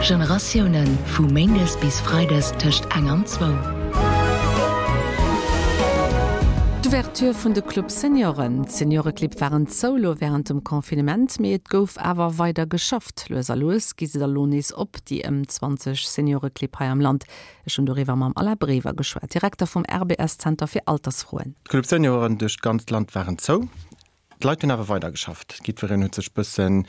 Generatiounen, vu méindes bis freides tëscht eng an zwou. D'Ouverture vun de Club Senioren. D'Senioreclibb waren zou lo wärend dem Confinement, mee et gouf awer weider geschafft. Lues a lues gi se da lo nees op, déi ëm 20 Senioreclibb hei am Land. Ech hunn doriwwer mam Alain Brever geschwat, Direkter vum RBS-Zenter fir Altersfroen. D'Club Senioren duerch d'ganzt Land waren zou. D'Leit hunn awer weider geschafft. Jiddwereen huet sech bëssen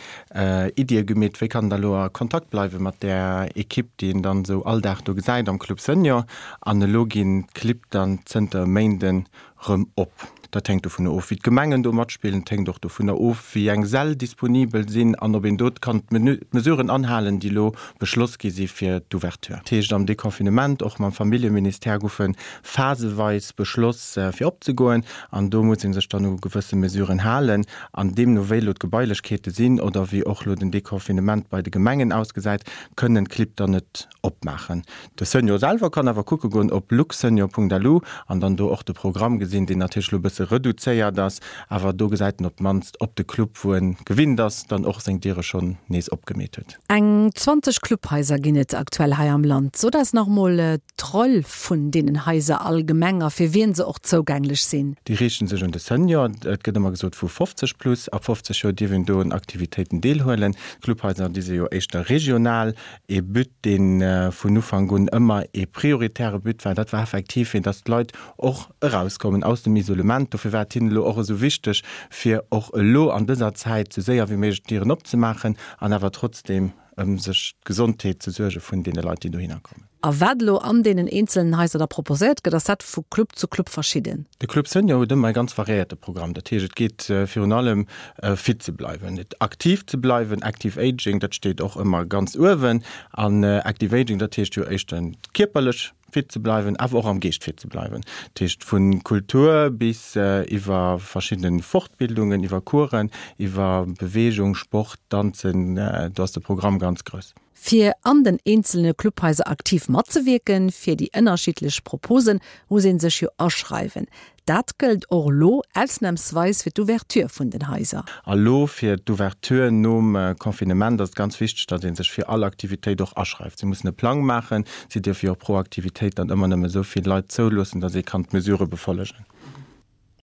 Iddie gemeet, wéi kann en da lo a Kontakt bleiwe mat där Ekipp, déi een dann esou all Dag do gesäit am Club Senior. An elo ginn d'Clibb dann zënter e Méinden rëm op. Dat hänkt dovunner of, wéi d'Gemengen do matspillen. Et hänkt och dovunner of, wéi eng Säll disponibel sinn an ob een do kann d'Mesuren anhalen, déi elo beschloss gi si fir d'Ouverture. Dat heescht, am Deconfinement, och mam Familljeministère, goufe phaseweis beschloss, fir opzegoen. An do muss ee sech dann u gewësse Mesuren halen. An deemno wéi elo d'Gebailechkeete sinn oder wéi och elo den Deconfinement bei de Gemengen ausgesäit, kënnen d'Clibb dann net opmaachen. De Senior selwer kann awer kucke goen op luxsenior.lu an dann do och de Programm gesinn, deen natierlech elo e bësse reduzéiert ass, awer do gesäit en op d'mannst, ob de Club, wou en gewinnt ass, dann och seng Diere schonn nees opgemeet huet. Eng 20 Clubhaiser ginn et aktuell hei am Land. Sot eis nach mol d'Roll vun deenen Haiser allgemeng a fir wien se och zougänglech sinn. Déi riichten sech un de Senior. Et gëtt ëmmer gesot vu 50 plus. Ab 50 Joer dierf een do un Aktivitéiten deelhuelen. D'Clubhaiser, déi si jo éischter regional. Ee But, dee vun Ufank un ëmmer ee prioritäre But war, dat war effektiv, fir datt d'Leit och erauskommen aus dem Isolement. Dofir war et hinnen elo och esou wichteg, fir och elo an dëser Zäit esou séier wéi méiglech d'Dieren opzemaachen an awer trotzdeem ëm sech d'Gesondheet ze suerge vun deene Leit, déi dohinner kommen. A wat elo an deenen eenzelen Haiser da proposéiert gëtt, ass dat vu Club zu Club verschidden? De Club Senior huet ëmmer e ganz variéierte Programm. Dat heescht, et geet virun allem fit ze bleiwen, aktiv ze bleiwen, Active Aging, dat steet och ëmmer ganz uewen. An Active Aging, dat heescht jo éischtens kierperlech fit ze bleiwen, awer och am Geescht fit ze bleiwen. Dat heescht vu Kultur bis iwwer verschidde Fortbildungen, iwwer Coursen, iwwer Beweegung, Sport, Danzen, do ass de Programm ganz grouss. Fir an den eenzelne Clubhaiser aktiv matzewierken, fir déi ënnerschiddlech Proposen, muss ee sech jo aschreiwen. Dat gëllt och elo ausnamsweis fir d'Ouverture vun den Haiser. A lo fir d'Ouverture nom Confinement ass et ganz wichteg, datt ee sech fir all Aktivitéit och aschreift. Si mussen e Plang maachen. Si dierfe jo och pro Aktivitéit dann ëmmer nëmme esou vill Leit zouloossen, datt ee kann d'Mesurë befollegen.